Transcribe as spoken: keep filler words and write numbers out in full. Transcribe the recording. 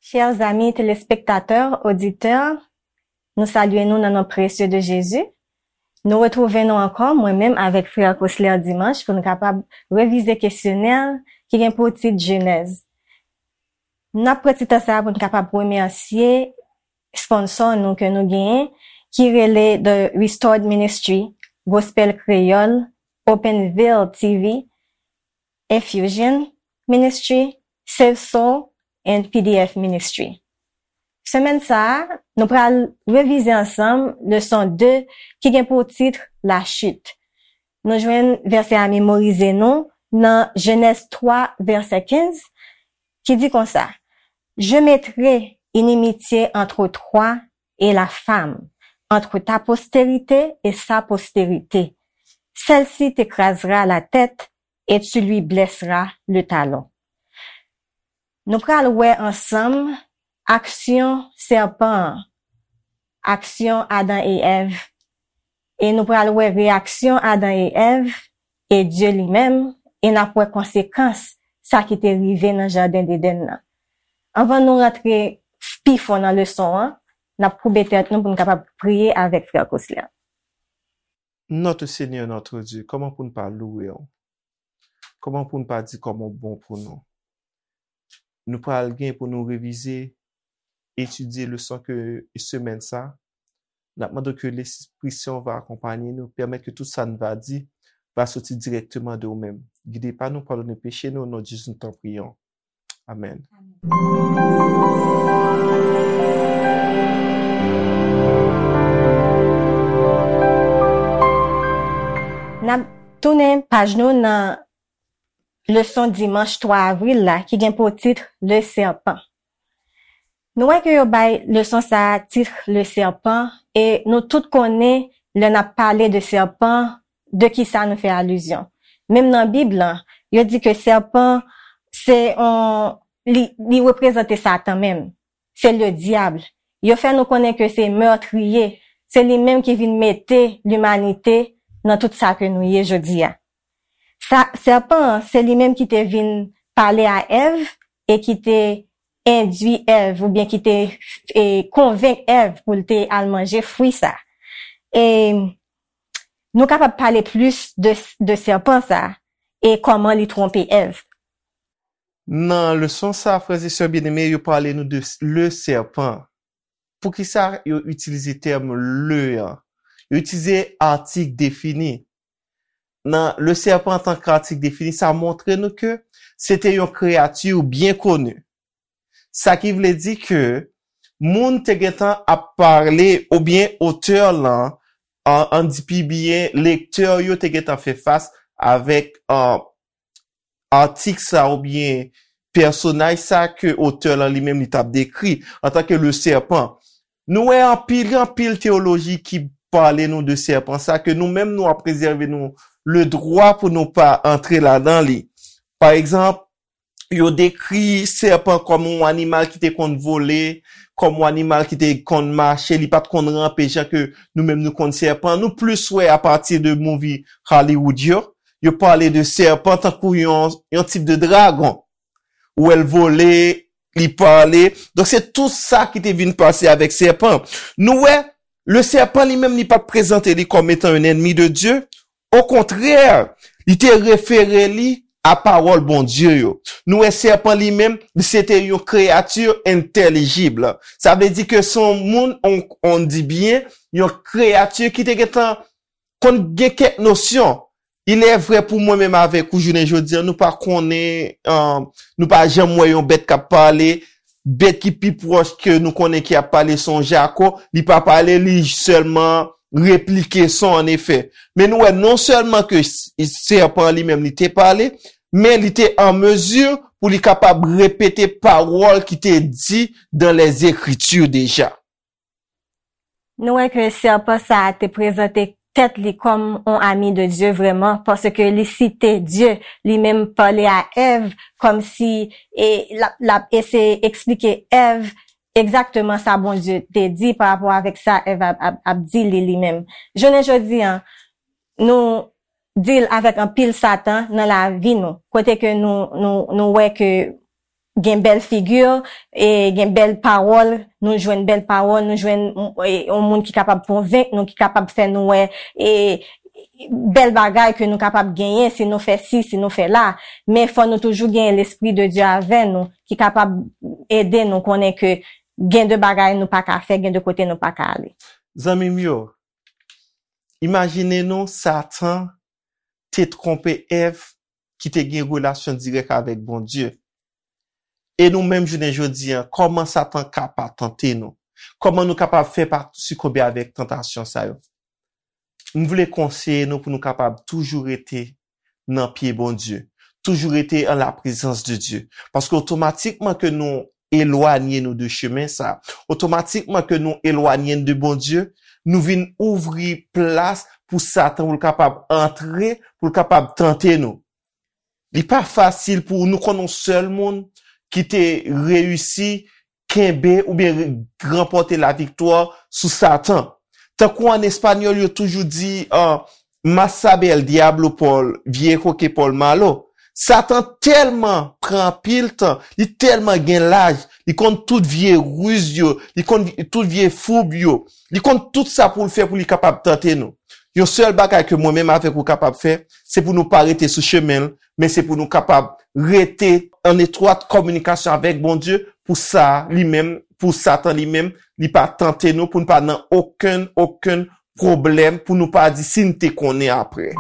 Chers amis téléspectateurs, auditeurs, nou salye nou nan non presye de Jezi. Nou retwouve nou ankò, mwen menm avèk frè Cosler Dimanche, pou n kapab revize kesyonè ki gen pou tit Jenèz. N ap pran ti tan sa a pou n kapab remèsye sponsò nou ke nou genyen, ki rele The Restored Ministry, Gospel Kreyòl, Open Veil T V, Infusion Ministry, Save Soul, and P D F Ministry. Semèn sa a, nou pral revize ansanm leson de ki gen pou tit Lachit. Nou jwenn vèsè a memorize nou nan Jenèz twa, vèsè kenz, ki di konsa, Je mettrai inimitié entre toi et la femme, entre ta postérité et sa postérité. Celle-ci t'écrasera la tête et tu lui blesseras le talon. Nou pral wè ansanm aksyon sèpan an, aksyon Adan e Èv, e nou pral wè reyaksyon Adan e Èv e Dye li menm, e n ap wè konsekans sa ki te rive nan jaden Edenn nan. Anvan nou rantre pi fon nan leson an, n ap koube tèt nou pou n kapab priye avèk frè Cosler. Notre Seigneur, notre Dieu, kòman pou n pa louwe w? Kòman pou n pa di kòman w bon pou nou? Nou pral gen pou nou revize, etidye leson ke semèn sa. N ap mande w ke Lespri Sen w va akonpanye nou, pèmèt ke tout sa n va di va soti dirèkteman de w menm. Gide pa nou, padone peche nou, o non de Jezi nou ta priyè w. Amèn. N ap tounen paj nou nan leson dimanch twa avril la ki gen pou tit Le Serpent. Nou wè ke yo bay leson sa a tit Le Serpent e nou tout konnen lè n ap pale de sèpan, de kisa nou fè alizyon. Menm nan Bib lan, yo di ke sèpan se yon, li, li reprezante Satan menm. Se le dyab. Yo fè nou konnen ke se mètriye, se li menm ki vin mete limanite nan tout sa ke nou ye jodi a. Sa, sèpan an, se li menm ki te vin pale a Èv e ki te endwi Èv oubyen ki te e, konvenk Èv pou l te al manje fwi sa. E nou kapab pale plis de, de sèpan sa e kòman li twonpe Èv. Nan leson sa, frè e sè byeneme, yo pale nou de le serpent. Poukisa yo itilize tèm le an? Yo itilize atik defini. Nan le serpent antanke atik defini, sa montre nou ke se te yon kreyati byen koni. Sa ki vle di ke moun te gentan ap pale oubyen otè lan, an, an di pi byen, lektè yo te gentan fè fas avèk an, atik sa oubyen pèsonaj sa ke otè lan li menm li t ap dekri antanke le serpent. Nou wè anpil, anpil teyoloji ki pale nou de sèpan sa ke nou menm nou ap rezève nou le dwa pou nou pa antre ladan li. Pa egzanp, yo dekri sèpan kòm yon animal ki te konn vole, kòm yon animal ki te konn mache, li pa t konn ranpe jan ke nou menm nou konn sèpan. Nou plis wè apati de movie Hollywood yo, yo pale de sèpan tankou yon, yon tip de dragon. Ou wè l vole, li pale. Donk se tou sa ki te vin pase avèk sèpan. Nou wè, le sèpan li menm li pa t prezante li kòm etan yon ènmi de Dye. Okontrè, li te refere li a pawòl Bondye yo. Nou wè sèpan li menm, li se te yon kreyati entèlijib. Sa vle di ke se yon moun, on, on di byen, yon kreyati ki te gentan konn gen kèk nosyon. Il est vrai pou mwen menm avèk ou jounen jodi a, nou pa konnen, uh, nou pa janm wè yon bèt k ap pale. Bèt ki pi pwòch ke nou konnen ki ap pale se yon jako. Li pa pale, li sèlman replike son an efè. Men nou wè non sèlman ke sèpan li menm li te pale, men li te an mezi pou li kapab repete pawòl ki te di dans les Écritures déjà. Nou wè ke sèpan sa a te prezante tèt li kòm yon ami de Dye vrèman, paske li site Dye, li menm pale a Èv kòmsi e, l ap, l ap eseye eksplike Èv egzakteman sa Bondye te di pa rapò avèk sa Èv ap, ap, ap di li, li menm. Jounen jodi a, nou deal avèk anpil Satan nan lavi nou, kote ke nou, nou, nou wè ke gen bèl figi, e gen bèl pawòl, nou jwenn bèl pawòl, nou jwenn, e, yon moun ki kapab konvenk nou, ki kapab fè nou wè, e, bèl bagay ke nou kapab genyen si nou fè si, si nou fè la. Men fò nou toujou genyen Lespri de Dye avè nou, ki kapab ede nou konnen ke gen de bagay nou pa ka fè, gen de kote nou pa ka ale. Zanmi m yo, imajine nou Satan te twonpe Èv ki te gen relasyon dirèk avèk Bondye. E nou menm jounen jodi a, kòman Satan ka pa tante nou? Kòman nou kapab fè pa sikonbe avèk tantasyon sa yo? M vle konseye nou pou nou kapab toujou rete nan pye Bondye, toujou rete an la prezans de Dye. Paske otomatikman ke nou elwanye nou de chemen sa, otomatikman ke nou elwanye n de Bondye, nou vin ouvri plas pou Satan pou l kapab antre, pou l kapab tante nou. Li pa fasil pou nou konn yon sèl moun ki te reyisi kenbe oubyen ranpòte laviktwa sou Satan. Tankou an espanyòl, yo toujou di, uh, más sabe el diablo por viejo que por malo. Satan tèlman pran anpil tan, li tèlman gen laj, li konn tout vye riz yo, li konn tout vye foub yo, li konn tout sa pou l fè pou li kapab tante nou. Yon sèl bagay ke mwen menm avèk ou kapab fè, se pou nou pa rete sou chemen l, men se pou nou kapab rete an etwat kominikasyon avèk Bondye pou sa li menm, pou Satan li menm, li pa tante nou, pou nou pa nan okenn, okenn pwoblèm, pou nou pa di si n te konnen apre.